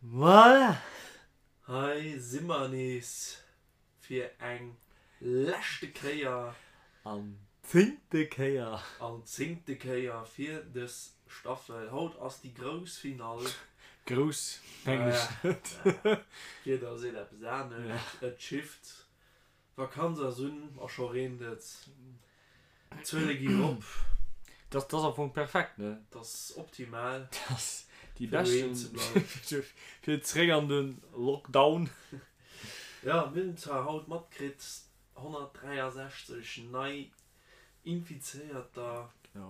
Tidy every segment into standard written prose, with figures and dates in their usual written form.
Voilà! Hei si mer nees fir eng leschte Kéier. An zéngte Kéier. An zéngte Kéier fir dës Staffel. Haut ass déi grouss Finall. Grouss mengen ech net. D'Wieder seet eppes anescht. Et schifft. D'Vakanz ass un a scho reent et. D'Zuele ginn erop. Dat ass am Fong perfekt, ne? Dat ass optimal. Dat ass déi beschten, fir zeréck an de Lockdown. Jo, mir hunn zwar haut matkritt, 163 nei Infizéierter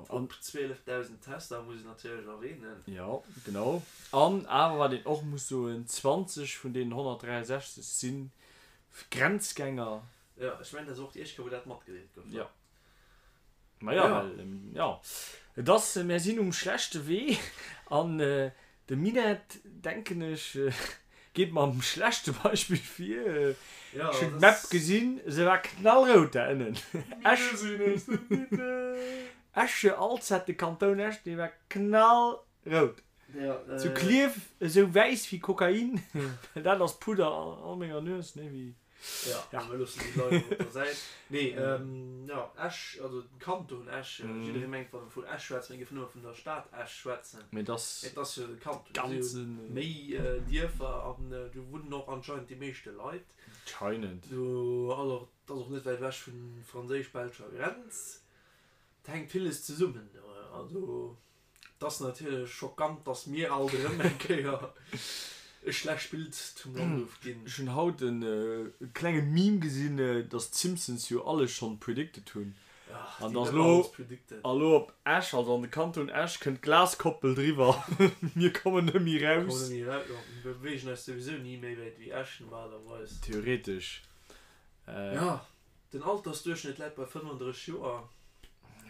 op 12.000 Tester, muss een natierlech erwähnen. Jo, genau. An awer, wat een och muss soen, 20 vun deenen 163 si Grenzgänger. Jo, ech mengen, dat ass och déi éischt Kéier, wou dat matgedeelt gouf. Jo. Maja, well, jo, et ass, mär sinn um schlechte Wee an de Minett, denken ech, geet mam schlechte Beispill vir. Ech hunn d'Map gesinn, se war knallrout da ënnen. Esch, Esch, Alzette, de Kanton Esch, dee war knallrout. Zu Klierf esou wäiss wéi Kokain, well dat ass Pudder an menger Nues, ne, wéi. Ja, mir loossen déi Leit op der Säit. Nee, jo, Esch, also den Kanton Esch, jidderee mengt, wann e vun Esch schwätzt, mir géifen nëmme vun der Stad Esch schwätzen. Mee et ass Et ass jo de Kanton, et si jo méi Dierfer an do wunnen och anscheinend déi meeschte Leit. Anscheinend. Do ass och, et ass och net wäit ewech vun franséisch-belscher Grenz. Et hänkt villes zesummen do. Also. Et ass natierlech schockant, dass mir alt erëm eng Kéier e schlecht Bild zum Land ofginn. Ech hunn haut e klenge Meme gesinn, dass d'Simpsons jo alles schonn predicted hunn. An dass elo elo op Esch, also an de Kanton Esch, kënnt d'Glaskoppel driwwer. Mir kommen net méi raus. Kommen net méi raus, jo. Mir beweegen eis souwisou ni méi wäit wéi Esch normalerweis. Theoretesch. Jo, den Altersduerchschnëtt läit bei 35 Joer.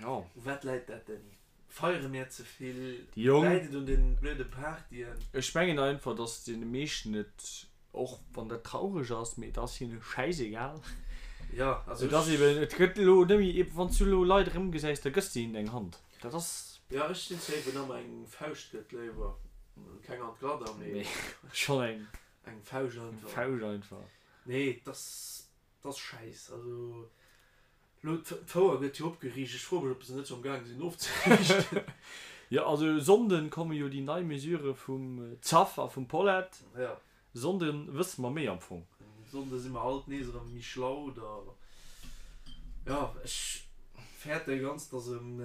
Jo. U wat läit dat, Dany? Feiere mir ze vill? Déi Jong. Läit et un den blöde Partyen? Ech mengen einfach, dass deene meeschten et, och wann dat traureg ass, mee et ass hinne schäisegal. Jo, also Et ass ech. eben, et gëtt elo net méi, eben wann s du elo Leit erëmgesäis, da gëss de hinnen eng Hand. Dat ass. Jo, ech sinn safe, wien ëmmer eng Fauscht gëtt, léiwer keng an d'Gladder, mee. Mee schonn eng. Eng Fauscht einfach. Eng Fauscht einfach. Nee, et ass, et ass schäiss. Also. Lo, d'Fouer gëtt jo opgeriicht. Ech froe mech, ob se net scho amgaange sinn ofzeriichten. Jo, also e Sonnden komme jo déi nei Mesure vum Zaff a vum Paulette. Jo. E Sonnde wësse mer méi am Fong. E Sonnde si mer alt nees erëm méi schlau da. Jo, ech fäerte ganz, dass erëm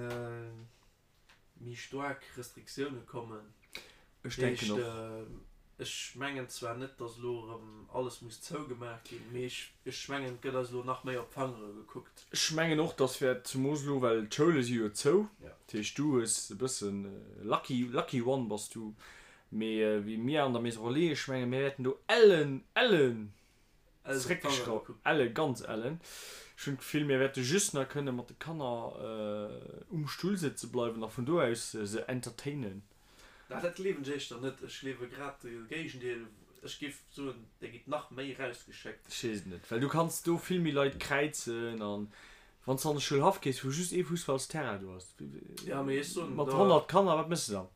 méi staark Restriktioune kommen. Ech denken och. Ech mengen zwar net, datt elo erëm alles muss zougemaach ginn, mee ech mengen, et gëtt eis elo nach méi op d'Fangere gekuckt. Ech mengen och, datt wäert, zemoos elo, well d'Schoule si jo zou, dat heescht du hues e bëssen lucky, lucky one bass du, mee wéi mir an der Maison Relais, ech menge mir wäerten do ellen, ellen Zréckgeschrauft, elle, ganz ellen. Ech hunn d'Gefill, mir wäerte just nach kënne mat de Kanner um Stull sëtze bleiwen a vun do aus se entertainen. Na, dat gleewen ech éischter net. Ech gleewe grad de Géigendeel. Ech géif soen, Dir gitt nach méi rausgeschéckt. Ech weess et net, well du kanns do vill méi Leit kräizen an wann s de an de Schoulhaff gees, wou just ee Fussballsterrain do ass, Ja, mee ech soen mat da. 100 Kanner, wat méchs de dann?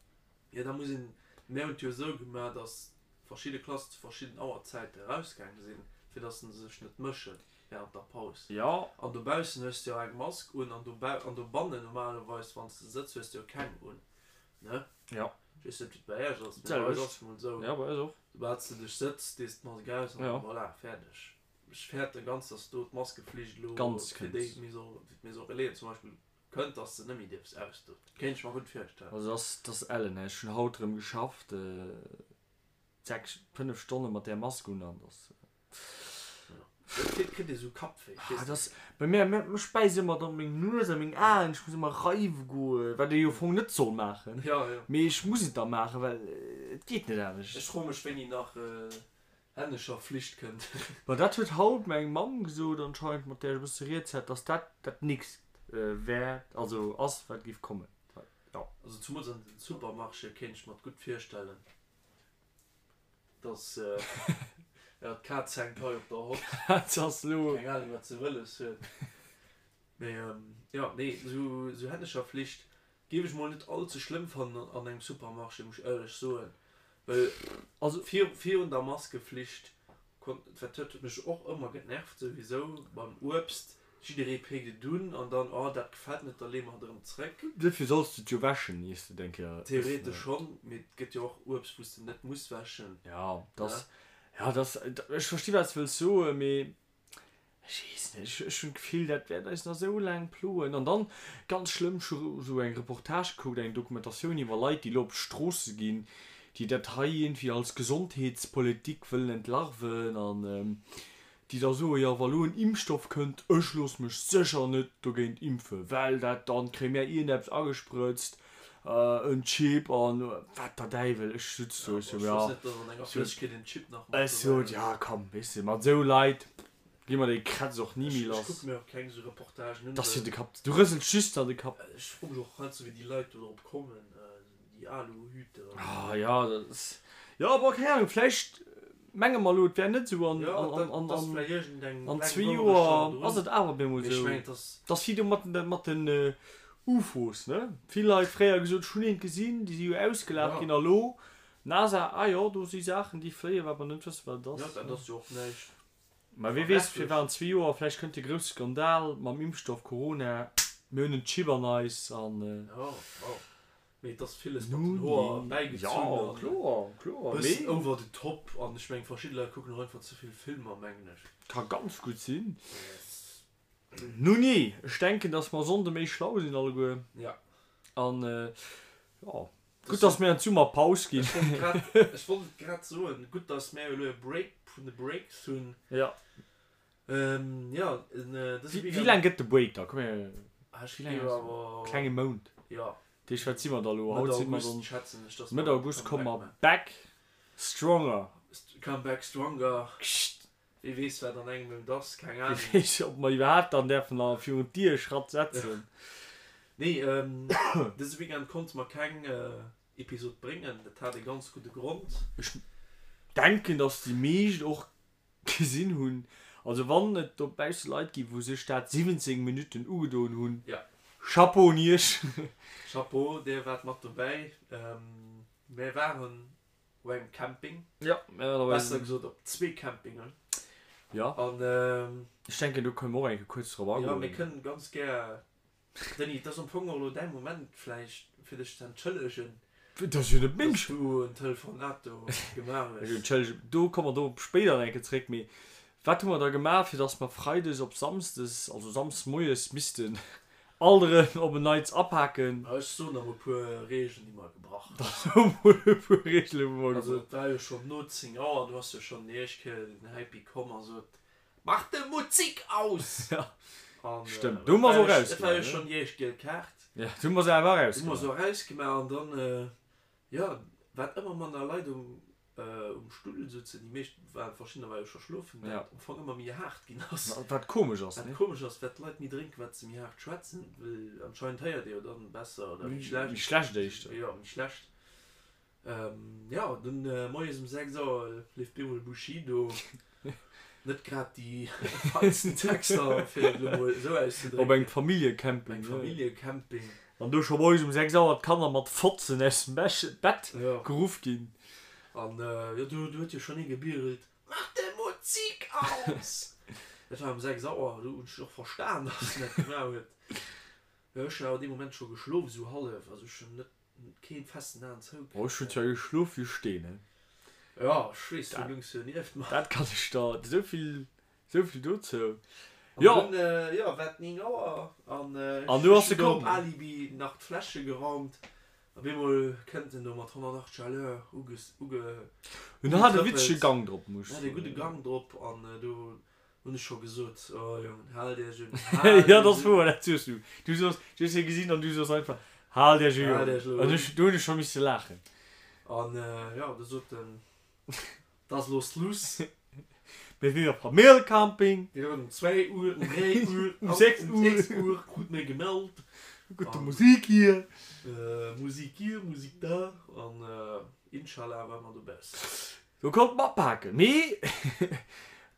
Jo, da muss een, mir hunn et jo esou gemaach, datt verschidde Klassen zu verschidden Auerzäite erausgaange sinn, fir datt se sech net mësche während der Paus. Jo. An dobaussen hues de jo eng Mask un an dobau, an dobannen normalerweis, wann s de sëtz, hues de jo keng un, ne? Jo. Ech weess net, wéi et bei Iech ass, mee bei eis ass et emol esou. Jo, bei eis och. Soubal s de dech sëtz, dees de d'Mask aus an voilà, fäerdeg. Ech fäerte ganz, datt do d'Maskeflicht elo fir déi Maison, fir d'Maison Relaisen zum Beispill Kënnt dass de nemmi dierfs ausdoen. Kéint ech mer gutt virstellen. Also dass dass ellen ech hun haut rem geschafft 6 5 Stonne mat där Mask un an dass Jo et kritt ee sou Kappwéi ah dass bei mir mech bäisst emmer dann meng Nues a meng Aen ech muss emmer reiwe goen wat ee jo fong net soll maachen mee ech muss et da maachen well et geet net anescht. Ech froe mech wéini nach Hännescher Flicht kënnt. Ma dat huet haut meng Mamm gesot anscheinend, mat där ech e bësse rieds hat, dass dat dat nächst wär, also ass, wat géif kommen. Jo. Also zumools an den Supermarchéë kéint ech mer et gutt virstellen, dass, jo, d'Kaz hänkt hei op der Hott. D'Kaz ass elo. Keng Ahnung, wat se wëlles huet. Mee jo, nee, esou Hännescher Flicht. Géif ech mol net all ze schlëmm fannen an engem Supermarché, muss ech éierlech soen, well also virun der Maskeflicht konnt, dat huet mech och ëmmer genervt souwisou beim Uebst, jidderee péckt et un an dann, oh dat gefält net, da leeë mer et erëm zréck. Duerfir solls de et jo wäschen, iers de et eng Kéier ëss. Theoretesch schonn, mee et gëtt jo och Uebst wou s de net muss wäschen. Jo, dass, jo, dass, ech versti wat s de wëlls soen, mee Ech weess net, ech hunn d'Gefill, dat wäert eis nach esou laang ploen. An dann, ganz schlëmm, ech hu esou eng Reportage gekuckt, eng Dokumentatioun iwwer Leit, déi elo op d'Stroosse ginn, déi dat hei iergendwéi als Gesondheetspolitik wëllen entlarven an déi da soen, jo, wa lo en Impfstoff kënnt, ech loosse mech sécher net dogéint impfen, well dat, dann kréie mär iergendeppes agesprëtzt, en Chip an wat der Däiwel. Ech sutz do, ech sou, ja, ech sot, ja komm, weess de, mat esou Leit gi mer dee Kretz och ni méi lass. Dass fir de Kapp, du rësels just an de Kapp. Ah ja, dat ass, jo, bon, keng Ahnung, vläicht menge mer elo, et wär net esou an an zwee Joer ass et awer op eemol esou. Et ass wéi do mat den mat den UFOs, ne? Vill Leit fréier gesot, ech hunn eent gesinn, déi si jo ausgelaacht ginn a lo NASA, ah jo, do si Saachen, déi fléien, wat mer net wëssen, wat et ass. Mä wie weess, firwat an zwee Joer, vläicht kënnt de grousse Skandal mam Impfstoff Corona, mir hunn en Chip an eis an. Mee et ass villes mat den Hoer bäigezunn an e bëssen over the top an ech mengen verschidde Leit kucken och einfach ze vill Filmer mengen ech. Ka ganz gutt sinn. Nunee, ech denken dass mer Sonnde méi schlau sinn alleguer. Ja. An jo, gutt dass mir an d'Summerpaus ginn. Ech wollt grad, ech wollt et grad soen, gutt dass mär elo e Break vun de Breaks hunn. Ja. Jo, dëse Weekend. Wéi laang gëtt de Break da? Komm mir, wéi laang ass deen? Klenge Mount. Jo. Dat heescht, wat si mer da elo? Haut si mer dann. Schätzen ech, dass mer. Mëtt August komme mer back stronger. Come back stronger. Wie weess, wat an engem Mount ass, keng Ahnung. Wie weess, ob mer iwwerhaapt dann däerfen nach virun d'Dier Schratt setzen. Nee, dëse Weekend konnte mer keng Episod bréngen. Dat hat e ganz gudde Grond. Ech denken, dass déi meescht och gesinn hunn. Also wann et dobausse Leit ginn, wou sech dat 17 Minutten ugedoen hunn, Ja. Chapeau un iech! Chapeau, dir waart mat dobäi. Mir waren op engem Camping. Ja, mir waren op engem. Besser gesot op zwee Campingen. Ja. An. Ech denken, do kënne mer och eng Kéier kuerz drop agoen. Jo, mir kënnen ganz gär Denis, et ass am Fong och elo däi Moment vläicht fir dech ze entschëllegen, Dat ass jo net meng dass du en Telefonat do gemaach hues. Entschëllegen, do komme mer do spéider nach eng Kéier zréck. Mee wat hu mer da gemaach, fir dass mer freides op samsdes, also samsdes moies missten alt erëm op en Neits apaken? Ech soen der mol e puer Reegelen, déi mer gebrach hunn. Da so mol e puer Reegelen, wou mer Also gebrach. et war jo schonn no 10 Auer, du has jo schonn déi éischt Kéier den Happy komm a sot, Mach de Muzik aus! Ja, stëmmt. Do hu mer se och Et war jo erausgemaach, schonn déi éischt giel Kaart. ne? Ja, do hu mer se awer Do hu mer se erausgemaach an dann, jo, wat ëmmer manner Leit um um Stull souzen, déi meescht waren, verschiddener ware jo scho schlofen, Ja. wat am Fong ëmmer méi haart ginn ass. Wat komesch ass, Wat ne? komesch ass, wat d'Leit méi drénken, wat se méi haart schwätzen, well anscheinend héiert ee jo dann besser oder méi schlecht. Méi schlecht éischter. Jo, méi schlecht. Jo, dunn moies um 6 Auer leeft bemol Bushido. Net grad déi feinsten Texter, fir et elo mol esou auszedrécken. Op engem Familljecamping. Op engem Familljecamping. An do scho moies um 6 Auer d'Kanner mat Fotzen aus dem Bett geruff ginn. An jo, do huet jo schonn ee gebierelt, Mach de Musik aus! Dat war um 6 Auer, do hunn ech och verstan, dass en dat gemaach huet. Jo, ech hunn awer dee Moment scho geschlof, esou hallef, also ech hunn net Keen festen Aen zou. Oh ech hunn zwar geschlof wéi Steen he. Jo ech weess, du lungs jo nieft mer. Dat kann ech der, esouvill esouvill dozou. An Jo. dunn jo war et 9 Auer an An du ech ass se hunn do op komm. Alibi nach d'Fläsche geraumt. Op eemol kënnt en do mat 180 à l'heure uges uge En hat e witzege ugetrëppelt. Gang drop, muss ech En hat e soen. gudde Gang drop an do Hunn ech scho gesot, oh Jongen, haalt iech un, haalt Jo, dat iech ass un. wouer, dat soos du. Du soos, du hues hie gesinn an du soos einfach, Haalt iech un, Haalt Jongen. iech elo An un. ech, do hunn ech scho misse laachen. An jo, du sot en, 't ass elo Schluss. Mir sinn op Familljecamping. Mir hunn um 2 Uhr, um 3 Uhr, Um 6 um Uhr. 6 Uhr krut mir gemellt. Gute Musik hier. Musik hier, Musik da. An Inshallah war mer dobaussen. Do konnt mer apaken. Mee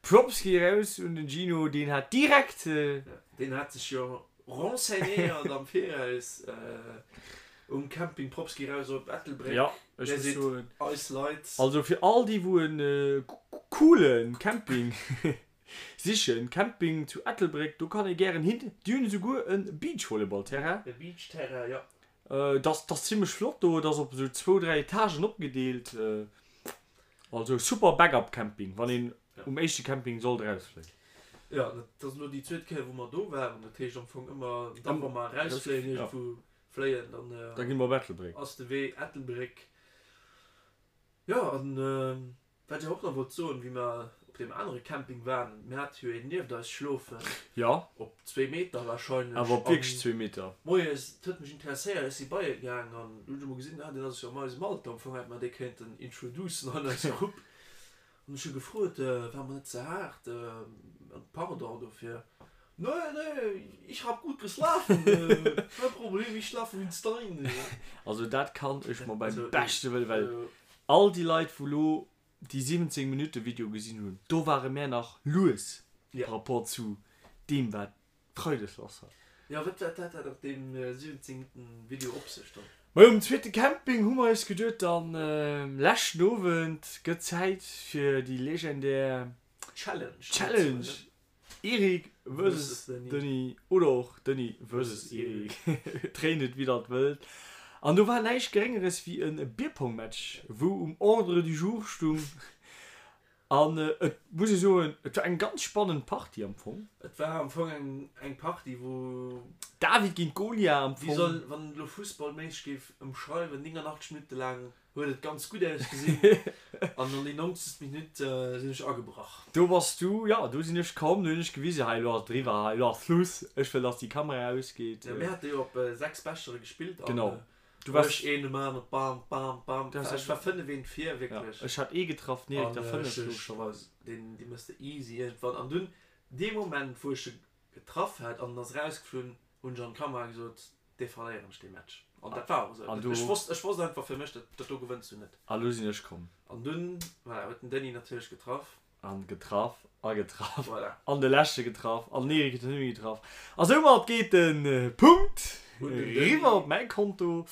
Props gi raus un den Gino, deen hat direkt. Deen hat sech jo renseignéiert am Viraus. Um Camping Props gi raus op Ettelbréck. Ja, ech muss soen. Eis Leit. Also fir all déi wou en coolen Camping sichen, Camping zu Ettelbréck, do kann ee gären hin. Déi hunn esouguer e Beachvolleyball-Terrain. E Beach-Terrain, jo. Et ass, ass zimmlech flott do. Et ass op esou zwou, dräi Etagen opgedeelt. Also super Backup Camping, wann een um éischte Camping sollt erausfléien. Jo, dat ass elo déi zweet Kéier wou mer do waren. Dat heescht am Fong ëmmer dann, wa mer erausfléien, iergendwou fléien, dann Da gi mer op Ettelbréck. ass de Wee Ettelbréck. Jo, an wat ech awer och nach wollt soen, wéi mer op deem anere Camping waren, mir hate jo een nieft eis schlofen. Jo. Op zwee Meter warscheinlech. Awer op wierklech zwee Meter. Moies, et huet mech interesséiert, ech si bei e gaang an du hunn ech emol gesinn, ah, deen ass jo an eisem Alter, am Fong hätt mer dee kéinten introducen an eis Grupp. An ech hu gefrot, war mer net ze haart, an pardon dofir, Nee, nee, ich hab gut geschlafen, kein Problem, ich schlafe wie ein Stein. Also dat kann ech mer beim beschte Wëlle, well all déi Leit wou lo déi 17 Minutte Video gesinn hunn, do ware mär nach lues par rapport zu deem wat Freides lass war. Jo, wat wat hat dat op deem 17 Minutten Video op sech dann? Majo, um zweete Camping hu mer eis geduet, dann leschten Owend gëtt Zäit fir déi legendär Challenge, Challenge Eric versus Denis oder och Denis versus Eric, dréint et wéi der et wëllt. An do war näischt Geréngeres wéi e Bierpong-Match, wou um Ordre du jour stung. An et muss ee soen, et war eng ganz spannend Partie am Fong. Et war am Fong eng eng Partie wou. David géint Golia am Fong. Wéi soll, wann een elo fussballméisseg géif ëmschreiwen, 89 Minutte laang huet et ganz gutt ausgesinn an an déi 90. Minutt sinn ech agebrach. Do bass du, jo, do sinn ech komm, do hunn ech gewisen, hei elo ass et eriwwer, hei elo ass Schluss, ech wëll dass déi Kamera ausgeet. Jo, mir hate jo op 6 Bechere gespillt an. Genau. Du wars Ech een um aneren, bam, bam, bam. Du hast Ech war 5 eent vir, wierklech. Ja, ech hat ee getraff, den Erik der 5, logescherweis. Deen, dee mëss de easy iergendwann. An dunn, dee Moment, wou ech e getraff hat an en ass erausgeflunn, hunn ech an d'Kamera gesot, dee verléieren ech, dee Match. An dat war och esou. An du. Ech wosst, ech wosst einfach fir mech, dat, dat do gewënns du net. A lo sinn ech komm. An dunn, voilà, huet den Denis natierlech getraff. An getraff a getraff. Voilà. An de leschte getraff an den Erik huet den net méi getraff. A soumat geet de Punkt riwwer op mäi Konto.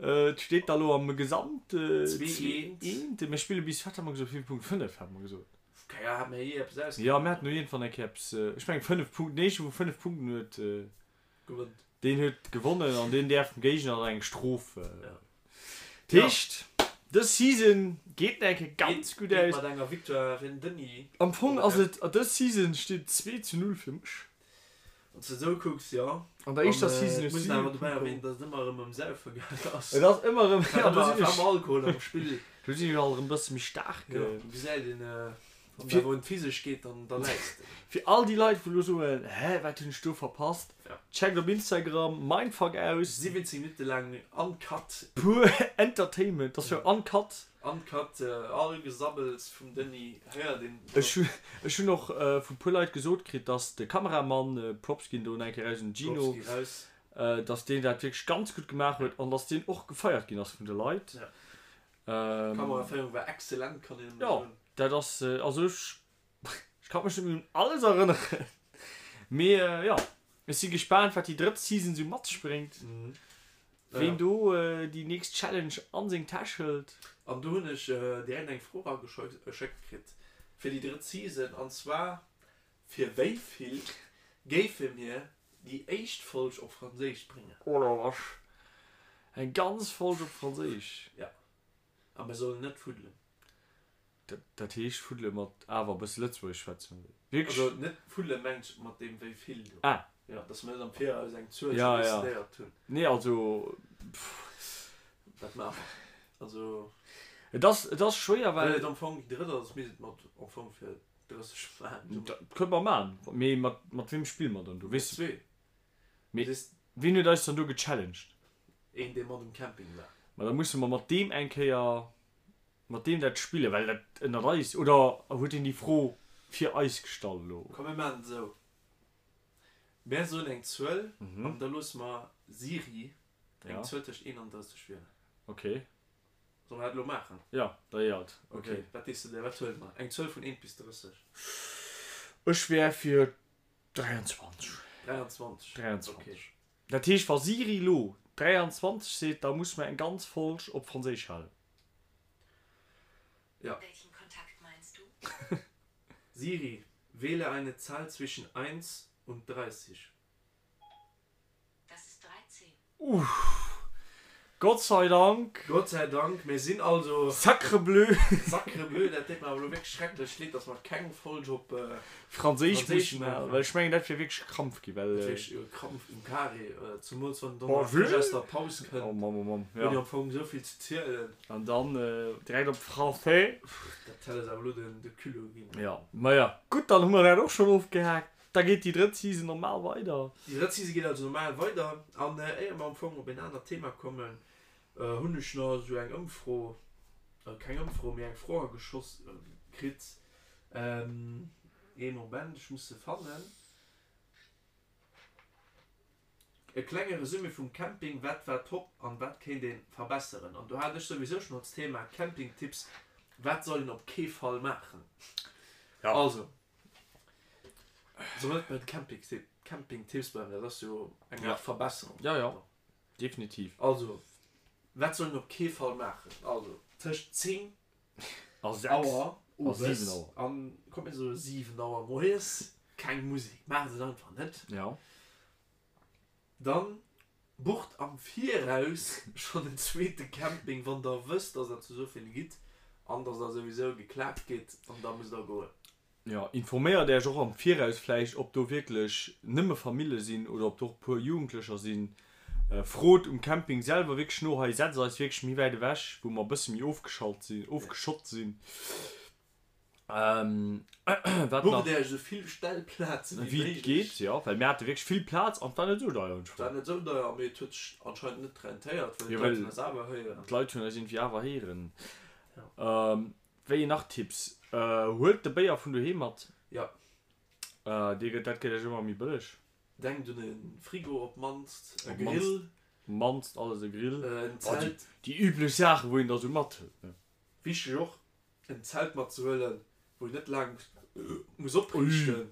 Et steet da lo am Gesamt 2, 1. Mir spille bis, wat hate mer gesot, wéi vill Punkt? 5 hate mer gesot. Keng Ahnung, hate mer jee eppes ausgemaach? Jo, mir haten no iergendwann eng Kéier eppes, ech mengen 5 Punkten, deen éischte wou 5 Punkten huet, Gewënnt. Deen huet gewonnen an deen däerf dem Géigner dann eng Strof. Dat heescht, dës Season geet nach eng Kéier ganz gutt Geet aus. mat enger Victoire fir den Denis. Am Fong ass et, dës Season steet 2 zu 0 fir mech. Wann s de esou kucks, jo. An der éischter Season hues du. Muss een awer dobäi erwähnen, dass et ëmmer erëm ëm Saufe gaangen ass. Et ass ëmmer erëm, jo, do sinn ech. War ëmmer Alkohol am Spill. Do sinn ech alt erëm e bësse méi staark. Jo, gesäit een. Wann et awer un d'Physesch geet, dann da läis de. Fir all déi Leit wou lo soen, hä wat hunn ech do verpasst, checkt op Instagram Mindfuck aus. 17 Minutte laang uncut. Pur Entertainment, dat ass jo uncut. Uncut, all Gesabbels vum Denis héiert een. Ech hu ech hunn och vu puer Leit gesot kritt, dass de Kameramann, Props ginn do nach eng Kéier raus un den Gino, Props gi raus. dass deen dat wierklech ganz gutt gemaach huet an dass deen och gefeiert ginn ass vun de Leit. D'Kameraféierung war excellent, kann een nëmme Jo, soen. dat ass, also ech, ech kann mech net méi un alles erënneren, mee jo, ech si gespaant wat déi drëtt Season sou mat sech bréngt, ween do déi nächst Challenge an seng Täsch hëlt. An do hunn ech direkt eng Fro erageschéckt kritt fir déi drëtt Season, an zwar, Fir wéi vill géife mir déi éischt Folg op Franséisch bréngen? Oh la vache, eng ganz Folg op Franséisch? Jo, a mir sollen net fuddelen. Dat heescht fuddele mat awer e bësse Lëtzebuergesch schwätzen, oder? Wierklech? Also net fuddele mengt ech mat deem wéi vill do. Ah. Jo, dass mir net am Viraus eng Zuel Ja, ja. decidéiert hunn. Nee, also pff. Dat maache mer. Also. Et ass, et ass schwéier, Well well. et am Fong déi drëtt ass, misst et mat am Fong fir 30 maachen. Dat kënne mer maachen. Mee mat, mat weem spille mer dann do? Weess du? Zwee. Mee wien huet eis dann do gechallenged? Een, dee mat um Camping war. Ma da musse mer mat deem eng Kéier, mat deem dat spillen, well dat ënnert eis, oder huet hien déi Fro fir eis gestallt elo? Komm mir maachen et esou, Mär soen eng Zuel an da loosse mer Siri eng Zuel tëscht 1 an 30 wielen. Ok. Solle mer dat elo maachen? Jo, da jo alt. Ok, wat dees de der? Wat huele mer? Eng Zuel vun 1 bis 30. Ech wär fir 23. 23. 23. Dat heescht, wa Siri elo. 23 seet, da musse mer eng ganz Folg op Franséisch halen. Ja. Welchen Kontakt meinst du? Siri, wähle eine Zahl zwischen 1 und 30. Das ist 13. Uff. Gott sei Dank. Gott sei Dank, mir sinn also. Sacre bleu. Sacre bleu, dat deet mer awer elo wierklech schrecklech leed, dass mer keng Folg op Franséisch mussen halen, well ech mengen, dat wier wierklech e Krampf ginn, well. Dat wier wierklech e Krampf um Carré, zemools wann en dann nach frësch aus der Paus kënnt. Oh Mamm, oh Mamm, jo. Huet jo am Fong esou vill ze zielen. An dann direkt op Français. Dat hätt eis awer elo de Culot ginn. Jo, maja, gutt, dann hu mer dat och schonn ofgehaakt. Da geet déi drëtt Season normal weider. Déi drëtt Season geet also normal weider. An éier mer am Fong op en anert Thema kommen, hunn ech nach esou eng Ëmfro, keng Ëmfro, mee eng Fro ageschoss kritt. Ee Moment, ech muss se fannen. E klenge Resumé vum Camping, Wat war top an wat kéint een verbesseren? An do hat ech souwisou schon als Thema Campingtipps, Wat soll een op kee Fall maachen? Also. Soll net bei de Campingtipps bleiwen, dat ass jo eng Aart Verbesserung. Jo, jo, definitiv. Also, wat soll een op kee Fall maachen? Also, tëscht 10 Auer owes an, komm mir soe 7 Auer moies, keng Musek. Maacht et einfach net. Jo. Dann bucht am Viraus schonn en zweete Camping, wann der wësst, dass der zu esou vill gitt an dass der souwisou geklaakt gitt an da musst der goen. Jo, informéiert Äech och am Viraus vläicht, ob do wierklech nëmme Famille sinn oder ob do och e puer Jugendlecher sinn. Frot um Camping selwer wierklech no, hei setzt eis wierklech méi wäit ewech, wou mer e bësse méi ofgeschalt sinn, ofgeschott sinn. Wat nach? Bucht Äech esou vill Stellplazen wéi méiglech. Geet, jo, well mir hate wierklech vill Plaz an et war net esou deier. Et war net esou deier, mee et huet sech anscheinend net rentéiert, well d'Leit hunn eis awer héieren. D'Leit hunn eis iergendwéi awer héieren. Wéi nach Tipps? Huelt de Béier vun doheem mat. Jo. Dee gëtt, dat gëtt iech ëmmer méi bëlleg. Denkt un e Frigo op d'mannst, e Grill. Op d'mannst alles e Grill. En Zelt. Déi üblech Saachen, wou een da sou mathëlt, ne? Wichteg och, en Zelt matzehuelen, wou een net laang muss opriichten.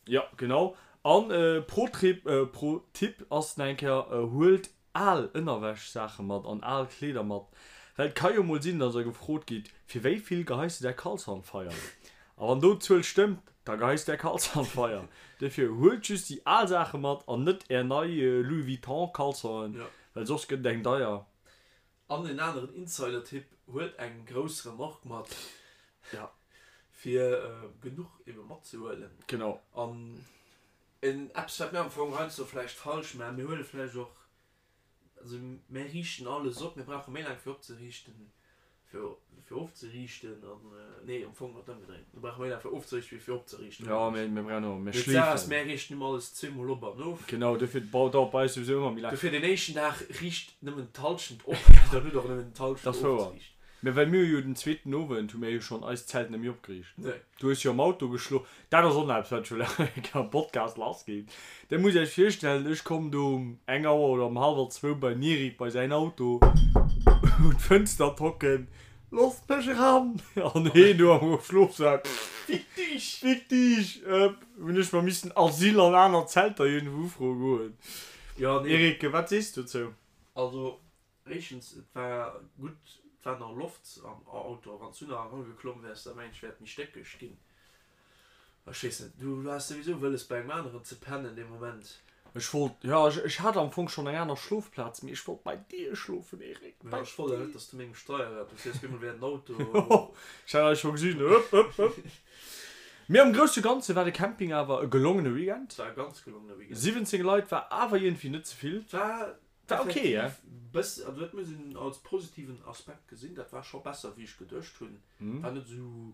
Jo, genau. An pro Trip, pro Tipp ass nach eng Kéier, huelt al Ënnerwäsch-Saache mat an al Kleeder mat, well et ka jo mol sinn, dass der gefrot gitt, fir wéi vill geheis de däi Caleçon an d'Feier? A wann do d'Zuel stëmmt, da geheis de däi Caleçon an d'Feier. Dofir huelt just déi al Saache mat an net är nei Louis Vuitton Caleçonen, well soss gëtt et eng deier. An en aneren Insider-Tipp, Huelt eng grouss Remorque mat, Ja. fir genuch ebe matzehuelen. Genau. An en eppes, wat mir am Fong heiansdo vläicht falsch maachen, mir huele vläicht och, also mir riichten alles op, mir brauche méi laang fir opzeriichten, fir fir ofzeriichten an, nee, am Fong ass et ëmgedréint, mir brauche méi laang fir ofzeriichten, wéi fir opzeriichten. Jo, mir mir brauchen och, mir Mee d'Saach ass, schleefen. mir riichten ëmmer alles zweemol op an of. Genau, dofir dauert bei eis souwisou ëmmer méi laang. Dofir den éischten Dag riicht nëmmen d'Hallschent op, dann hutt der och nëmmen d'Hallschent Dat ass wouer. ofzeriichten. Mä well mir hu jo den zweeten Owend hu mir jo schonn eist Zelt net méi opgeriicht. Nee. Du hues jo am Auto geschlof. Dat ass och nach eppes, wat ech wëll eng Kéier am Podcast lassginn. Dir musst Iech virstellen, ech kommen do um eng Auer oder um hallwer zwou beim Eric bei säin Auto un d'Fënster tocken, Loosst mech eran! An heen do am Schlofsak, Fick dich! Fick dich! Hunn ech mer missen Asyl an aner Zelter iergendwou ufroe goen. Jo, nee. Eric, wat sees du dozou? Also, Éischtens, et war gutt, et war nach Loft am Auto. Wann s du nach erageklomm wäers, da mengen ech, wär et méi stéckeg ginn. Ech weess net, du haas souwisou wëlles bei engem aneren ze pennen dee Moment. Ech wollt, jo, ech hat am Fong schonn eng aner Schlofplaz, mee ech wollt bei dir schlofen, Eric, bei dir. Ech wollt awer net, dass du mengem Steierrad, du fiers bemol wéi en Auto. Ech hat eis scho gesinn, hëpp, hëpp, hëpp. Mee am grousse Ganze war de Camping awer e gelongene Weekend. Et war e ganz gelongene Weekend. 17 Leit war awer iergendwéi net ze vill. Et war War ok, Effektiv, bëss, also dat muss een als positiven Aspekt gesinn, dat war scho besser wéi ech geduecht hunn, war net esou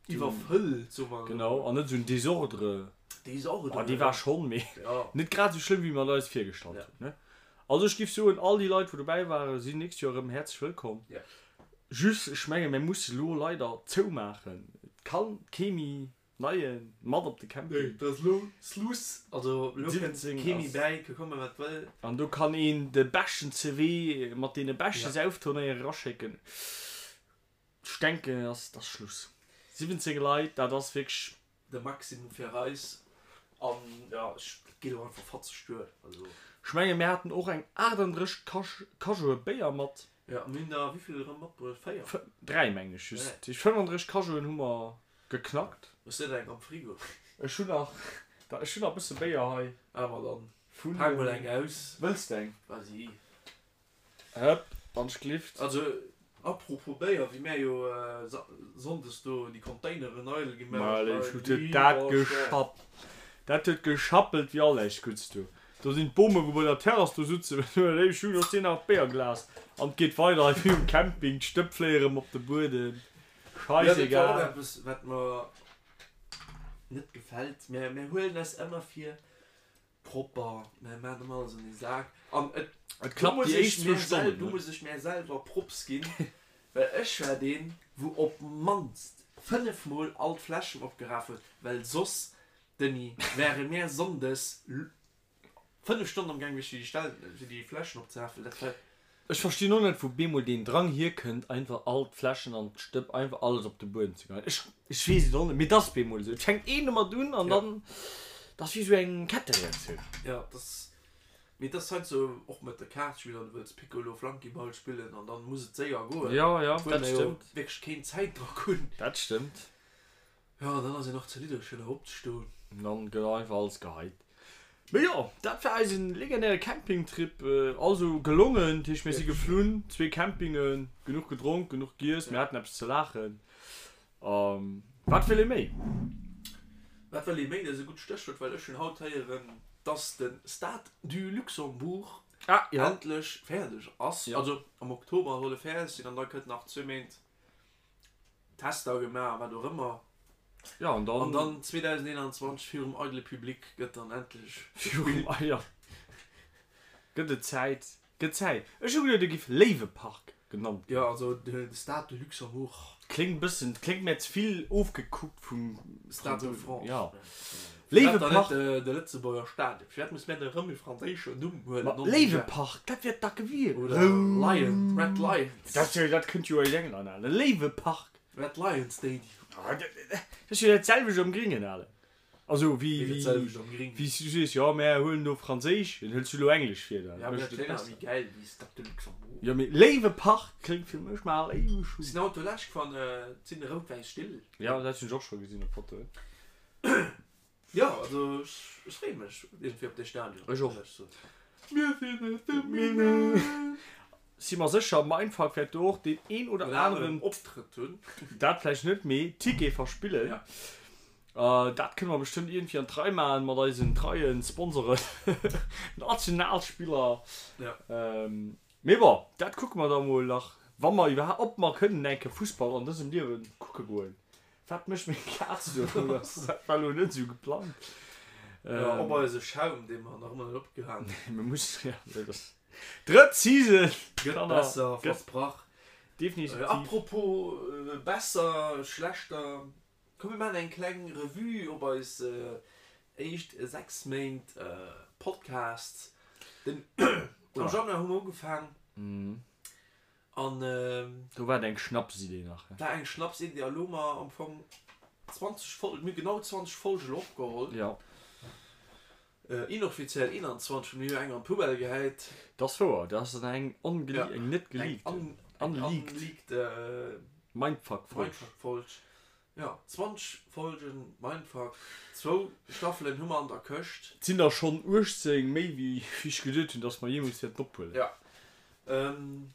iwwerfëllt, soe mer esou. Genau, an net esou en Désordre. Désordre, Oh, dee war schonn, mee ja. net grad esou schlëmm wéi mer et eis virgestallt hunn, ne? Also ech giff soen, all déi Leit wou dobäi waren, sinn nächst Joer erëm häerzlech wëllkomm. Ja. Just, ech menge mir musse lo leider zoumaachen, et kann kee méi Neien mat op de Camping. Nee, dat ass lo Sluss. Also lo kënnt 17 kee méi ass. bäi, ka komme wat wëll. An do kann een de beschten CV mat deene beschte Ja. Sauftournéeë eraschécken. Ech denken, et ass, et ass Schluss. 17 Leit, dat ass wierklech. De Maximum fir eis. An jo, ech geet och einfach fatzeg duer. Also. Ech menge mir haten och eng 38 Cajoe Béier mat. Jo, mir hunn der wéivill erëm matbruecht? 4? 3 mengen ech just. Dat heescht 35 Cajoen hu mer geknackt. Hues de der eng am Frigo? Ech hunn nach, ech hunn nach e bësse Béier hei. Ah ma dann pak mol eng aus. Wëlls de eng? Vas-y. Hëpp, wann ech glift. Also apropos Béier, wéi mär jo Sonndes do déi Containeren eidel gemaach hunn, hei, huet dat geschapp, dat huet geschappelt wéi all näischt Gudds do. Do sinn d'Bomen wou bei der Terrass do sutzen, ech hunn och sinn nach d'Béierglas an et geet weider hei wéi um Camping, d'Stëpp fléie rëm op de Buedem, scheißegal. Jo, dat war och eppes wat mer net gefält, mär huelen eis ëmmer vir Propper, mär maan ëmmer alles an ee Sak an et Et klappt déi éischt zwou Stonnen, do muss ech mär selwer Props ginn, well ech war deen wou op mannst 5 mol all d'Fläschen opgeraf huet, well soss, Denis, wäre mär Sonndes 5 Stonnen am gaang gewiescht fir déi fir déi Fläschen opzerafen, dat war. Ech verstinn och net wou beemol deen Drang hierkënnt einfach all d'Fläschen an d'Stëpp einfach alles op de Buedem ze geheien. Ech ech weess et och net, mee et ass beemol esou. Et fänkt een domat un an dann, et ass wéi esou eng Kettereaktioun. Jo, et ass, mee et ass heiansdo och mat de Kaartspiller, du wëlls Piccolo, Flunkyball spillen an dann muss et séier goen, Jo, jo, obwuel dat mer jo stëmmt. wierklech keen Zäitdrock hunn. Dat stëmmt. Jo, an dann ass een och ze liddeg fir nach opzestoen. An dann gëtt einfach alles geheit. Mee jo, dat war eisen legendäre Campingtrip. Also gelongen, dat heescht mir si geflunn, zwee Campingen, genuch gedronk, genuch giess, mir haten eppes ze laachen. A wat wëll ee méi? Wat wëll ee méi? Dat ass e gutt Stéchwuert, well ech hunn haut héieren, dass de Stade du Luxembourg endlech fäerdeg ass. Also am Oktober soll e fäerdeg sinn an da kënnt nach zwee Méint Tester gemaach a wat och ëmmer. Ja, an dann. An dann 2021 virum eidele Public gëtt dann endlech Virum, ah ja. Gëtt et Zäit, gëtt Zäit. Ech hu geduet, e giff Léiwepark genannt ginn. Jo, also de Stade de Luxembourg. Kléngt bëssen, kléngt mär ze vill ofgekuckt vum Stade de France. Ja. Léiwepark. De Lëtzebuerger Stadion. Firwat muss mär da rëm e franséischen Numm huelen? Ma Léiwepark, dat wier dacke wier. Oder Lion, Red Lions. Dat jo, dat kënnt jo aus England, ale. Léiwepark. Red Lion Stadium. Dat ass jo dat selwecht am Gringen, ale. Also wéi, Wéi dat selwecht am Gringen? Wéi s du sees, jo, mär huelen do Franséisch, dann hëls du elo Englesch fir da. Ja, mee dat kléngt awer méi gäil wéi Stade de Luxembourg. Jo, mee Léiwepark kléngt fir mech mal éiweg un. Sinn haut do lech gefahren, et sinn rout-wäiss Still. Jo, dat hunn ech och scho gesinn op Fotoen. Jo, also ech freeë mech iergendwéi op dee Stadion. Ech och. Mir sinn aus dem Minett. Si mer sécher, Mindfuck wäert do och deen een oder aneren Optrëtt hunn. Dat vläicht net, mee Ticket verspillen. Ja. Dat kënne mer bestëmmt iergendwéi an d'Rei maachen mat eisen treien Sponsoren, Nationalspiller. Ja. Mee bon, dat kucke mer da mol nach, wa mer iwwerhaapt, ob mer kënnen eng Kéier Fussball an dësem Liewe kucke goen. Wat mécht meng Kaz do? Dat war elo net esou geplangt. Jo, op eise Schaum, dee mer nach ëmmer net opgehaangen hunn. Mir mussen, ja, dat ass drëtt Season. Gëtt besser, versprach. Definitiv. Apropos besser, schlechter, komm mir maachen eng kleng Revue op eis éischt 6 Méint Podcast. Den am Januar hu mer ugefaang. An Do war et eng Schnapsidee nach. War eng Schnapsidee a lo hu mer am Fong 20 Folgen, mir hu genau 20 Folgen elo opgeholl. Jo. Inoffiziell 21, well mir hu jo eng an d'Poubelle gehäit. Dat ass wouer, dat ass dann eng ongele-, eng net geleakten, eng unleaked Mindfuck-Folg. Mindfuck-Folg. Jo, 20 Folgen Mindfuck, zwou Staffelen hu mer an der Këscht. Et sinn der schonn 18 méi wéi ech geduet hunn, dass mer jeemools wäerten ophuelen. Jo.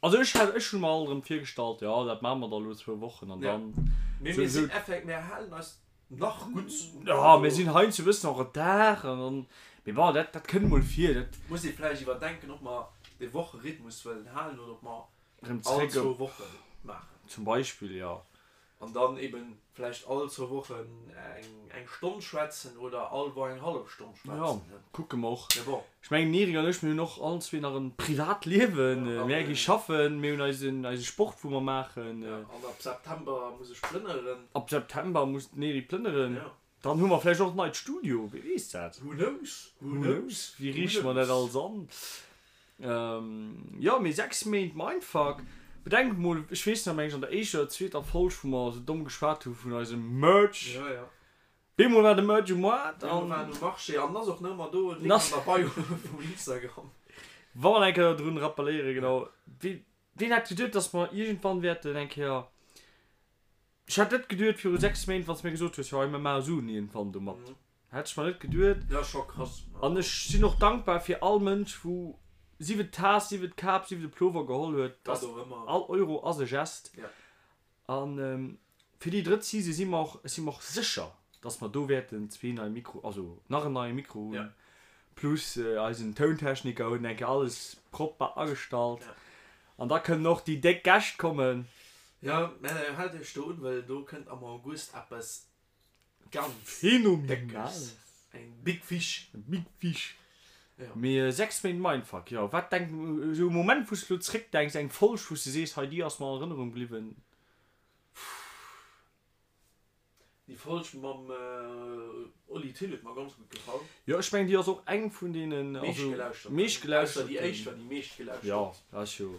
Also ech hat, ech hunn mer alt erëm virgestallt, jo dat maache mer da lo zwou Wochen an dann. Mee mir sinn effekt, mir halen eis nach gutt. Jo, mir sinn heiansdo e bëssen en retard an dann, mee bon, dat, dat kënnt mol vir, dat. Muss ee vläicht iwwerdenken, ob mer dee Wocherhythmus wëllen halen oder ob mer Erëm all zréck zwou op. Woche maachen. Zum Beispill, jo. An dann eben vläicht all zwou Wochen eng eng Stonn schwätzen oder all Woch eng hallef Stonn Ja, schwätzen, ne? kucke mer och. Mee bon. Ech mengen, den Eric an ech, mir hunn och allen zwee nach en Privatliewen. Ja, Mär gi an. schaffen, mir hunn eisen eise Sport, wou mer maachen. Ja, an ab September muss ech plënneren. Ab September muss den Eric plënneren. Ja. Dann hu mer vläicht och en neit Studio, wie weess dat? Who knows, who knows, wéi riichte mer dat alles an? Jo, mee 6 Méint Mindfuck. Bedenk mol, ech weess nach, meng ech an der éischter oder zweeter Folg, wou mer esou domm geschwat hu vun eisem Merch, Ja, ja. Bemol war de Merch um Moart an. Bemol war en um Marché an ass och nach ëmmer do, Link an der Bio vum Instagram. Wa mer eng Kéier drun rappelléieren, genau, ween hätt geduet, dass mer iergendwann wäerten eng Kéier, ech hätt net geduet viru 6 Méint, wann s de mir gesot hues, jo hei mir maache Suen iergendwann domat, hätt ech mer net geduet. Jo, scho krass. An ech sinn och dankbar fir all Mënsch, wou sief et d'Taass, sief et d'Kap, sief et de Plover geholl huet, Wat och ëmmer. All Euro ass e Gest. An fir déi drëtt Season si mer och, si mer och sécher, dass mer do wäerten zwee nei Mikro, also nach en neie Mikro hunn, plus eisen Tountechniker huet eng Kéier alles propper agestallt. An da kënnen och déi déck Gäscht kommen. Jo, mä haalt iech do un, well do kënnt am August eppes Ganz Phänomenal. Eng big fish. Eng big fish. Ja. Mee 6 Méint Mindfuck, jo. Wat denk, esou e Moment wou s de elo zréckdenks, eng Folg wou s de sees, hei déi ass mer an Erënnerung bliwwen? Déi Folg mam Oli Thill huet mer ganz gutt gefall. Jo, ech mengen déi ass och eng vun deenen, also meeschtgelauschtert. Meeschtgelauschtert. Ausser déi éischt war déi meeschtgelauschtert. Jo, dat ass jo.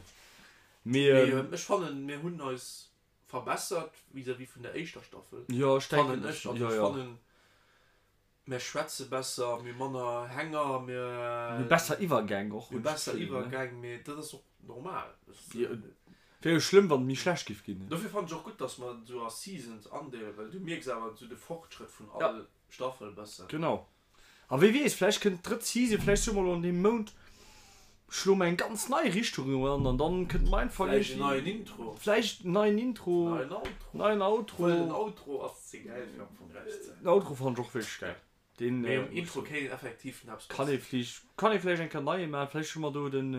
Mee ech fannen mir hunn eis verbessert vis-à-vis vun der éischter Staffel. Jo, ech denken, fannen ech. Also ech fannen, mir schwätze besser, mir hu manner Hänger, mir. Mir hu besser Iwwergäng och. Mir hu besser Iwwergäng, mee dat ass och normal. Wär jo schlëmm, wann et méi schlecht giff ginn. Dofir fannen ech och gutt, dass mer et esou a Seasons andeelen, well du mierks awer esou de Fortschrëtt vun all Staffel bëssen. Genau. A wie weess, vläicht kënnt d'drëtt Season, vläicht soe mer elo an deem Mount schloe mer eng ganz nei Richtung an an dann kënnt Mindfuck Vläicht en neien Intro. Vläicht en neien Intro. Neien Outro. Neien Outro. Obwuel den Outro ass ze gäil fir am Fong erauszehauen. Den Outro fannen ech och wierklech gäil. Deen. Mee um Intro kéint een effektiv nach eppes Kann ee vläicht, kann ee vläicht eng Kéier neie maachen. Vläicht hu mer do den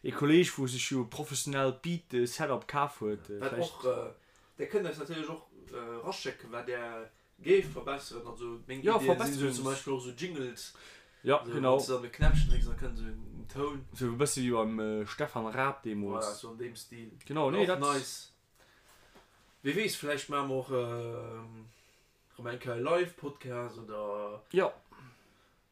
ee Kolleg wou sech jo e professionellt Beat Setup kaf huet. Wat och, där kënnt eis natierlech och eraschécken wat där Géif verbesseren, also meng Ja, Iddien sinn sou zum Verbesserungs. Beispill och sou Jingles, Ja, sou genau. wann s de dann e Knäppchen drécks, da kënnt sou en Toun. Sou e bësse wéi beim Stefan Raab Voilà, deemools. sou an deem Stil. Genau, Wär nee, och dat. nice. Wie weess, vläicht maache mer och erëm eng Kéier e Live-Podcast oder Ja.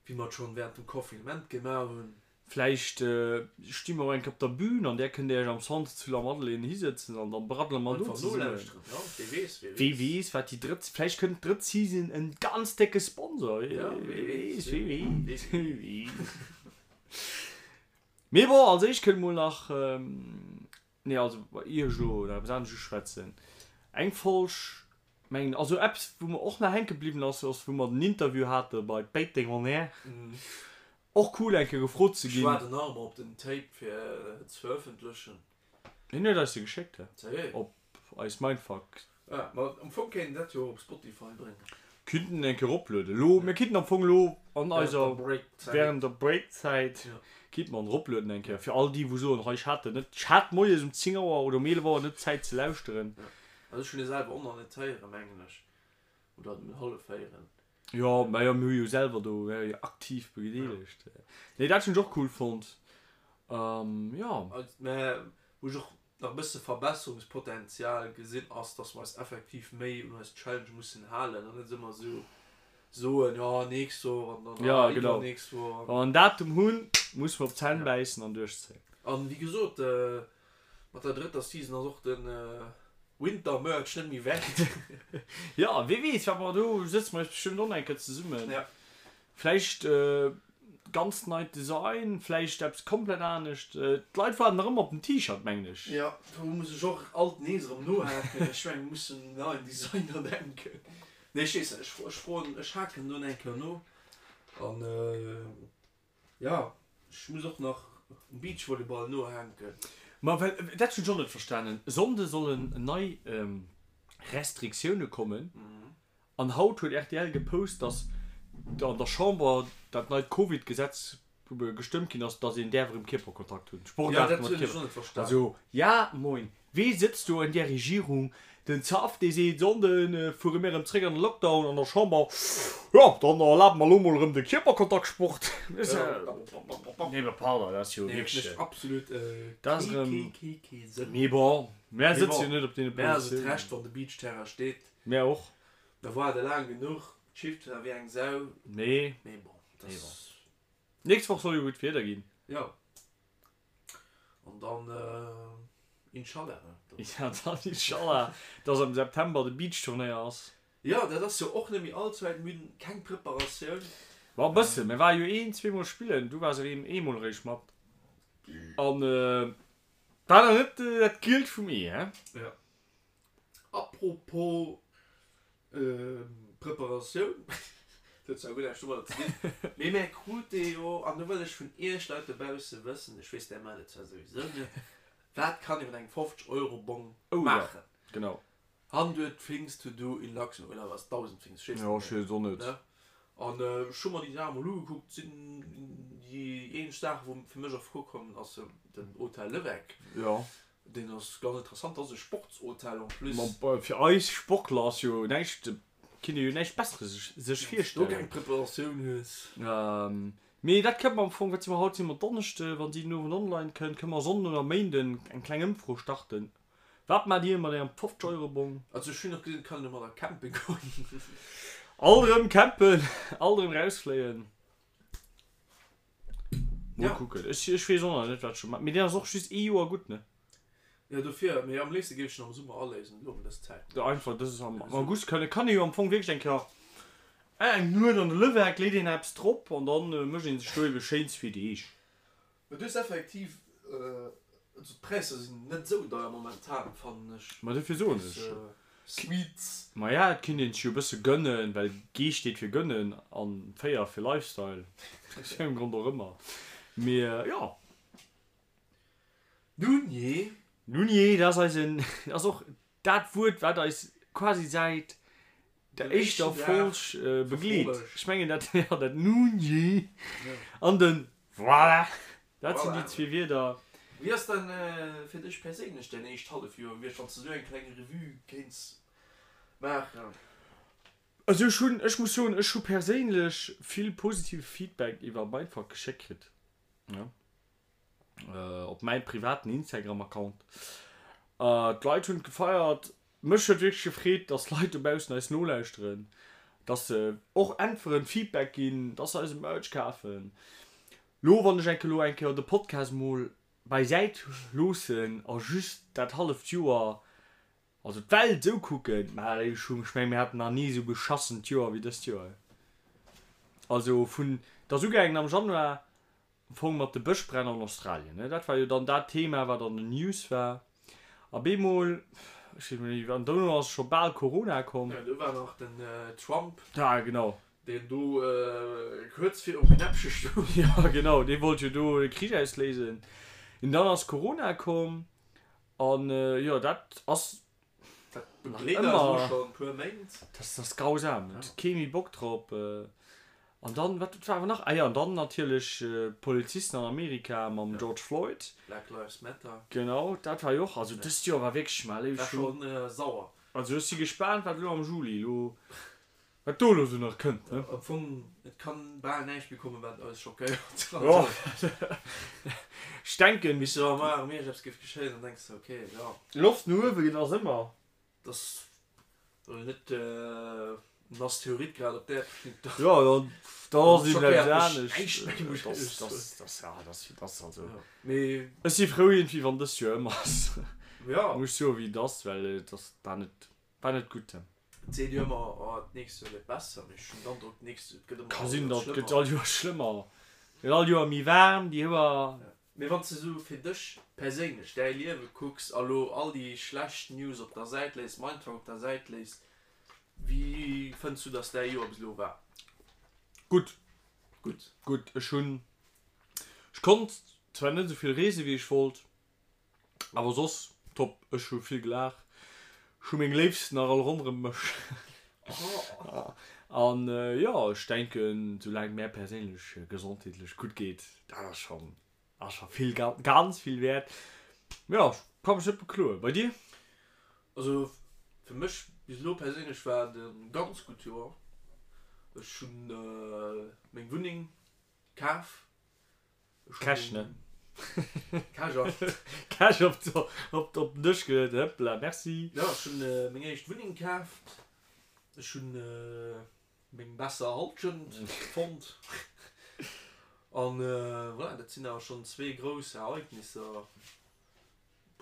wéi mer et schonn während dem Confinement gemaach hunn. Vläicht sti mer och eng Kéier op der Bühn an där kënnt Dir Iech am Centre zu Lamadelaine hisëtzen an dann braddele mer do Einfach zesummen. nolauschteren, jo, wee weess, wee Wee weess. weess, wat déi drëtt, vläicht kënnt d'drëtt Season en ganz décke Sponsor, wee Ja, wee weess, weess, wee wee weess, weess. wee weess. Mee bon, als éischt kënnt mol nach, nee, also ier ech elo nach eppes anescht uschwätzen, eng Folg, mengen, also eppes wou mer och nach hänke bliwwen ass, ass wou mer den Interview hate bei Péiteng on Air. Och cool eng Kéier gefrot ze Ech ginn. waarden nach ëmmer op den Tape fir et ze verëffentlechen. Hien huet eis se geschéckt, he? Sérieux? Op eis Mindfuck. Ah, ma am Fong kéint een dat jo och op Spotify bréngen. Kinnten en eng Kéier eroplueden. Elo, mir kinnten am Fong elo an Während eiser, der Breakzäit. während der Breakzäit, Ja. kinnte mer en eroplueden eng Kéier. Fir all déi wou soen, hei ech hat en net, ech hat moies um 10 Auer oder um 11 Auer net Zäit ze lauschteren. Ja. Also ech hunn e selwer och nach net héieren, mengen ech. Oder hallef héieren. Jo, majo, mir hu jo selwer do, mir jo aktiv bedeelegt. Nee, dat hunn ech och cool fonnt. Jo. Mä wou ech och nach e bësse Verbesserungspotenzial gesinn, ass, dass mer eis effektiv méi un eis Challenge mussen halen an net ëmmer esou soen, jo, nächst Woch an dann, ah, iwwernächst Woch. Wa mer en Datum hunn, musse mer op d'Zänn bäissen an duerchzéien. An wéi gesot, Mat der drëtter Season ass och de Winter Merch net méi wäit. Jo, wee weess wat mer do, sëtze mer eis bestëmmt och nach eng Kéier zesummen. Ja. Vläicht ganz neit Design, vläicht eppes komplett anescht. D'Leit waarden nach ëmmer op den T-Shirt, mengen ech. Jo, do muss ech och alt nees erëm nohaken. Ech mengen, mir mussen un en neien Designer denken. Nee, ech weess net, ech froen, ech haken do nach eng Kéier no an. Jo, ech muss och nach um Beachvolleyball nohänken. Ma well, dat hunn ech och net verstanen, e Sonnde sollen nei Restriktioune kommen an haut huet rtl gepost, datt an der Chamber dat neit Covid-Gesetz gestëmmt ginn ass, datt een däerf erëm Kierperkontakt hunn, Sportaarte mat Jo, dat hunn ech Kierper. och net verstanen. Also, ja moin, Wee sëtzt do an där Regierung? Den Zaff dee seet, Sonnde fuere mir erëm zréck an de Lockdown an der Chamber, jo dann erlabe mer elo mol erëm de Kierperkontaktsport. Nee mä pardon, dat ass jo wierklech, Absolut dat ass erëm, kee kee Sënn. Mee bon, mär sëtze jo net op deene Mär ass et Positiounen. Recht wann de Beachterrain steet. Mär och. Mer waarde laang genuch, d'Schiff war wéi eng Sau. Nee. Mee bon, dat ass. Nächst Woch soll jo gutt Wieder ginn. Jo. An dann Inshallah, ne? Ja, dann Inshallah, dass am September de Beachturnéier ass. Jo, dat ass jo och net méi all ze wäit. Mir hunn keng Preparatioun. Ma e bëssen. Mir ware jo een, zweemol spillen. Du waars erém eemol eréischt mat. An war nach net dat Gielt vum Ee, hä? Jo. Apropos Preparatioun, dat huet zwar guer näischt domadder ze dinn, mee mär krute jo, an do wëll ech vun iech Leit dobausse wëssen, ech weess, där maacht et zwar souwisou net, wat kann ee mat engem 50 Euro Bong maachen? Jo, genau. 100 things to do in Luxembourg, oder was, 1000 things, ech weess et net méi. Jo, ech weess et och net. Ne? An ech hu mer déi Saach emol ugekuckt, sinn déi eenzeg Saach, wou fir mech a Fro kommen, ass den Hotel Levecq. Jo. Deen ass ganz interessant, dat ass e Sportshotel en plus. Ma fir eis Sportler ass jo näischt, kinnt ee jo näischt Besseres sech virstellen. Wann s du keng Preparatioun hues. Mee dat kënne mer am Fong, wat si mer haut, si mer Donneschde, wann si den Owend online kënnt, kënne mer Sonnden oder Méinden eng kleng Ëmfro starten. Wat maacht Dir mat Ärem 50 Euro Bong? Also ech hunn och gesinn, et kann een domadder campen goen. Alt erëm campen, alt erëm rausfléien. Mol ja. kucken. Ech, ech weess och nach net, wat ech scho maachen. Mee deen ass och just ee Joer gutt, ne? Jo, dofir. Mee am léifste géif ech en am Summer aléisen, elo ëm dës Zäit. Jo, einfach dës am August kann, kann ee jo am Fong wierklech eng Kéier eng Nuet an de Lëwerk, leet een eppes drop an dann mécht een sech do ebe schéin zwee Deeg. Mee du hues effektiv, also d'Präisser sinn net esou deier momentan, fannen ech. Ma dofir soen ech. Suites. Maja, et kinnt een sech jo e bësse gënnen, well G steet fir gënnen an 4 fir Lifestyle, aus wéi engem Grond och ëmmer. Mee jo. Nun jee. Nun jee, dat ass eisen, dat ass och dat Wuert, wat eis quasi säit der éischter Folg begleet. Ech mengen dat, jo, dat Nun jee an den Voilà! Dat sinn déi zwee Wierder. Wéi ass dann fir dech perséinlech däin éischt Hallefjoer gewiescht, wann s de esou eng kleng Revue kéints maachen? Also ech hunn, ech muss soen, ech hu perséinlech vill positive Feedback iwwer Mindfuck geschéckt kritt, jo, op mäi privaten Instagram-Account. D'Leit hunn et gefeiert. Mech huet wierklech gefreet, dass Leit dobaussen eis nolauschteren, dass se och äntweren, Feedback ginn, dass se eise Merch kafen. Lo wann ech enke lo eng Kéier de Podcast mol beisäit loossen a just dat halleft Joer, also d'Welt esou kucken, mä ech hu, ech mengen mir haten nach ni esou beschassent Joer wéi dëst Joer. Also vun, et ass ugaangen am Januar Am Fong mat de Bëschbränn an Australien, ne? Dat war jo dann dat Thema, wat an den News war. A bemol, ech weess net, an dono ass scho bal Corona komm. Jo, do war nach den Trump. Ja, genau. Deen do kuerz virum Knäppche stoung. Jo, genau, dee wollt jo do de Krich ausléisen. An dann ass Corona komm. An jo, dat ass Dat begleet eis elo schonn e puer Méint. Dat ass grausam, et huet kee méi Bock drop. An dann, wat war awer nach? Ah jo, an dann natierlech d'Polizisten an Amerika mam George Floyd. Black Lives Matter. Genau, dat war jo och, also dëst Joer war wierklech, mä léif, ech hu. War schonn sauer. Also ech si gespaant, wat elo am Juli elo, wat do elo sou nach kënnt, ne? Am Fong, et kann bal näischt méi kommen, wat eis schockéiert. Jo, ech denken. Wéi s de wa mar erëm iergendeppes géif geschéien, dann denks de, ok, jo. Loft no uewe gëtt ass ëmmer. Et ass elo net en Asteroid grad op d'Äerd geflunn, da. Jo, dann, dann ass eben eppes anescht. Dat ass, dat ass, ja, dat ass, dat ass also. Mee. Ech si frou iergendwéi, wann dëst Joer ëm ass. Jo. Muss ech soen, wéi et ass, well et ass, war net, war net gutt. Et seet jo ëmmer, oh d'nächst Joer gëtt besser, mee ech hunn den Androck, d'nächst Joer, et gëtt ëmmer Ka sinn, datt gëtt all Joer schlëmmer. Gëtt all Joer méi waarm, déi Hoer. Mee wann s de sou fir dech perséinlech däi Liewe kucks a lo all déi schlecht News op der Säit léiss, Mindfuck op der Säit léiss, wéi fënns du, datt däi Joer bis elo war? Gutt. Gutt. Gutt. Ech hunn, ech konnt zwar net esou vill reese wéi ech wollt, Awer soss top, ech hu vill gelaacht, ech hu meng Léifsten nach all ronderem mech an jo ech denken soulaang et mär perséinlech gesondheetlech gutt geet, dat ass schon ass scho vill ganz vill wäert. Jo ech ka mech net bekloen. Bei dir? Also fir mech bis elo perséinlech war et e ganz gutt Joer. Ech hunn meng Wunneng kaf. Cash, ne? Cash op. Cash op op op den Dësch geluet, hëppla, merci. Jo, ech hunn meng éischt Wunneng kaaft. Ech hunn meng besser Halschent fonnt. An voilà, dat sinn awer schonn zwee grouss Ereignisser,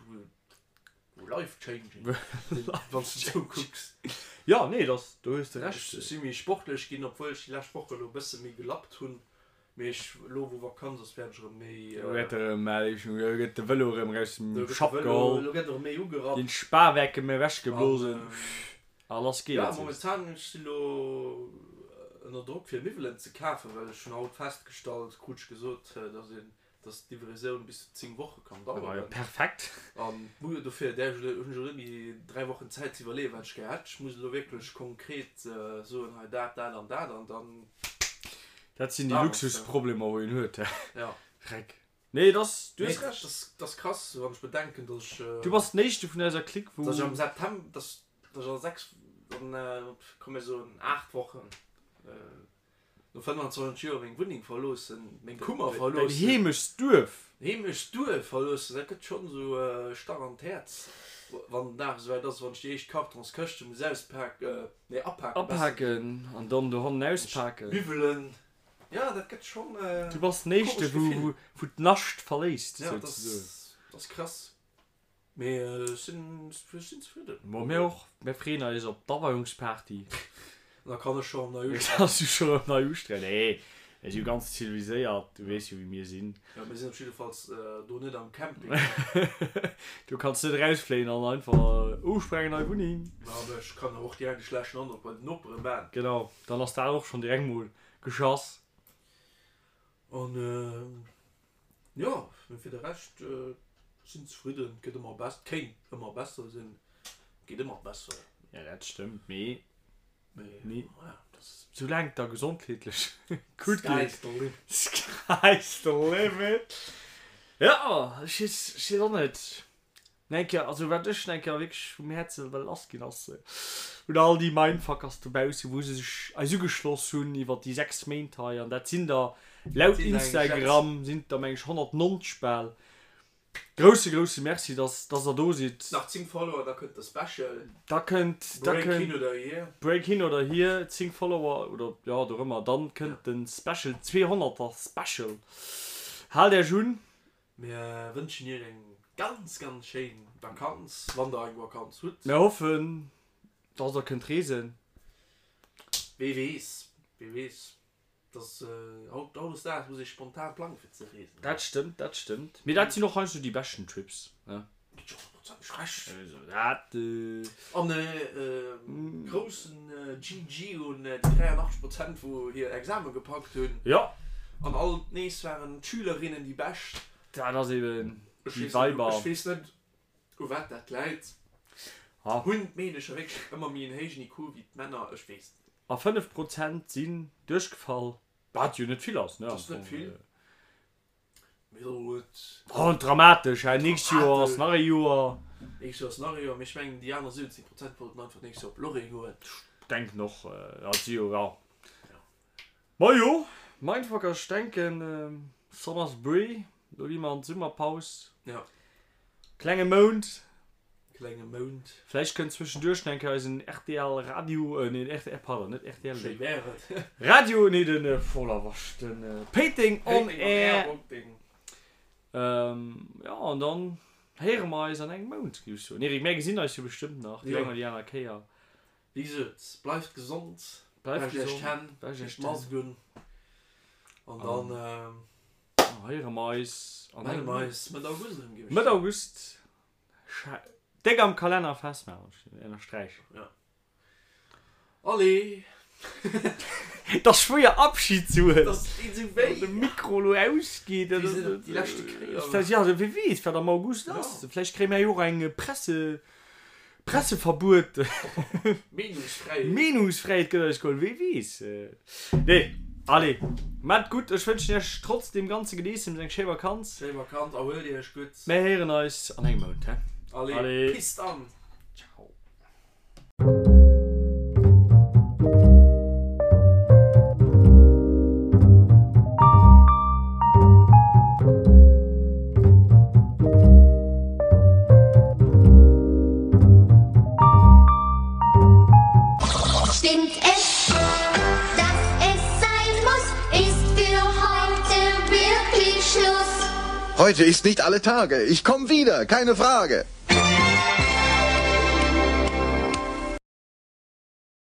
wou life changing sinn, wann s de esou kucks. Jo, nee, dass, do hues de Recht. Ech si méi sportlech ginn, obwuel ech déi lescht Woche elo e bësse méi gelappt hunn. Mee ech, elo wou Vakanz ass, wäert ech erëm méi. Elo gëtt erëm, elo gëtt de Vëlo erëm raus dem Schapp geholl. Elo gëtt erëm méi ugerappt. Ginn d'Spawerke méi ewechgeblosen a lass geet et. Jo, momentan, ech si elo ënner Drock fir Miwwelen ze kafen, well ech hunn haut festgestallt, krut ech gesot, dass een dass d'Livraison bis zu 10 Woche kann daueren. Jo, perfekt. An dofir där ech hunn ech elo net méi 3 Wochen Zäit ze iwwerleeën, wat ech gär hätt. Ech muss elo wierklech konkret soen, hei dat, dat an dat an dann. Dat sinn déi Luxusproblemer, wou een huet, hä? Ja. Dreck. Nee, et ass, du hues Recht. Dat ass krass, wann ech bedenken, dass ech. Du bass den éischte vun eiser Clique, wou. Dass ech am September, dass ech a 6, an, komm mir soen 8 Wochen, No 25 Joer meng Wunneng verloossen, meng Kummer verloossen. Däin Heemechtsduerf. Heemechtsduerf verloossen, dat gëtt schonn esou e Stach an d'Häerz, wann den Dag esouwäit ass, wann ech déi éischt Kartonskëschte muss auspaken, nee apaken besser. Apaken an dann dohannen auspaken. Miwwelen, jo dat gëtt schonn e Du bass den éischte wou d'Nascht verléisst souzesoen. Jo, dat ass krass. Mee ech sinn ech sinn zefridden. Bon, mir och. Mir freeën eis op d'Aweiungsparty. Da kann ech scho erëm nei usträichen. Kanns du scho erëm nei usträichen. Nee, mir si jo ganz ziviliséiert, du weess jo wéi mir sinn. Jo, mir sinn op jiddefalls do net am Camping. Du kanns net erausfléien an einfach, oh ech brauch eng nei Wunneng. Ma awer ech kann och direkt e schlechten Androck bei den Nopere man. Genau, dann ass dat och schonn direkt mol geschass. An Jo, mee fir de Rescht sinn zefridden. Et gëtt ëmmer bess, et kéint ëmmer besser sinn, et geet ëmmer besser. Jo, dat stëmmt, mee mee soulaang et der gesondheetlech gutt geet, Sky's the limit. Sky's the limit. Jo, ech weess, ech weess och net. Eng Kéier, also wat ech eng Kéier wierklech vum Häerze wëll lass ginn ass un all déi Mindfuckers dobausse wou se sech eis ugeschloss hunn iwwer déi 6 Méint hei an dat sinn der laut Instagram sinn et der meng ech 190 bal. Grousse grousse Merci dass dass der do sidd. Nach 10 Follower da kënnt de Special. Da kënnt da Break kënnt hin oder hier. Break hin oder hier 10 Follower oder jo dorëmmer dann kënnt de Special 200er Special. Haalt Iech un. Mir wënschen iech eng ganz ganz schéin Vakanz, wann der eng Vakanz hutt. Mir hoffen dass der kënnt reesen. Wee weess, wee weess, dass haut hautdesdaags muss ee spontan plangen fir ze reesen. Dat stëmmt, dat stëmmt. Mee dat sinn och heiansdo déi beschten Trips, ne? Ginn ech honnertprozenteg Recht. Also dat. An e groussen GG un déi 83 Prozent wou hir Exame gepackt hunn. Jo. An alt nees waren d'Schülerinnen déi bescht. Dat ass eben déi Weiber. Ech weess net u wat dat läit. Hunn d'Meedecher wierklech ëmmer méi en héijen IQ wéi d'Männer? Ech weess et net. A 5 Prozent sinn duerchgefall, wat jo net vill ass, ne? Dat ass net vill. Oh, dramatesch, hä? Nächst Joer ass nach e Joer. Nächst Joer ass nach e Joer, mee ech mengen déi aner 70 Prozent wollten einfach d'nächst Joer op Lorraine goen. Ech denken och, dat si jo, ja. Majo, Mindfucker, ech denken Summer's Bree, do gi mer an d'Summerpaus. Ja. Klenge Mount. Klenge Mount. Vläicht kënnt zwëschenduerch nach eng Kéier eisen rtl Radio, nee rtl, pardon, net rtl, Schéi wär et. Radio, nee den, voller Wasch, den Péiteng on Air. Jo, an dann héiere mer eis an engem Mount, géif ech soen. Eric, mär gesinn eis jo bestëmmt nach déi eng oder déi aner Kéier. Wéi gesot, bleift gesond, Bleift wäscht iech gesond, d'Hänn, wäscht iech deet d'Mask un an dann héiere mer eis an melle engem mer Mount. eis Mëtt August erëm, géif ech Mëtt soen. August. Déck am Kalenner festmaachen, ënnersträichen. Ja. Allez! Et ass schwéier Abschid ze huelen. Dass deet esou wéi. Wann de Mikro elo ausgeet. Wéi se dat déi leschte Kéier. Ja, wie weess, wat am August ass. Vläicht kréie mir jo och eng Presse, Presseverbuet. Meenungsfräiheet. Meenungsfräiheet gëtt eis geholl, wie weess. Nee, allez, maat gutt. Ech wënschen iech trotz deem ganze Gedeessems eng schéi Vakanz. Schéi Vakanz, erhuelt iech gutt. Mir héieren eis an engem Mount, he? Allez, Allez. Peace dann. Ciao. Stimmt es, dass es sein muss, ist für heute wirklich Schluss. Heute ist nicht alle Tage. Ich komm wieder, keine Frage.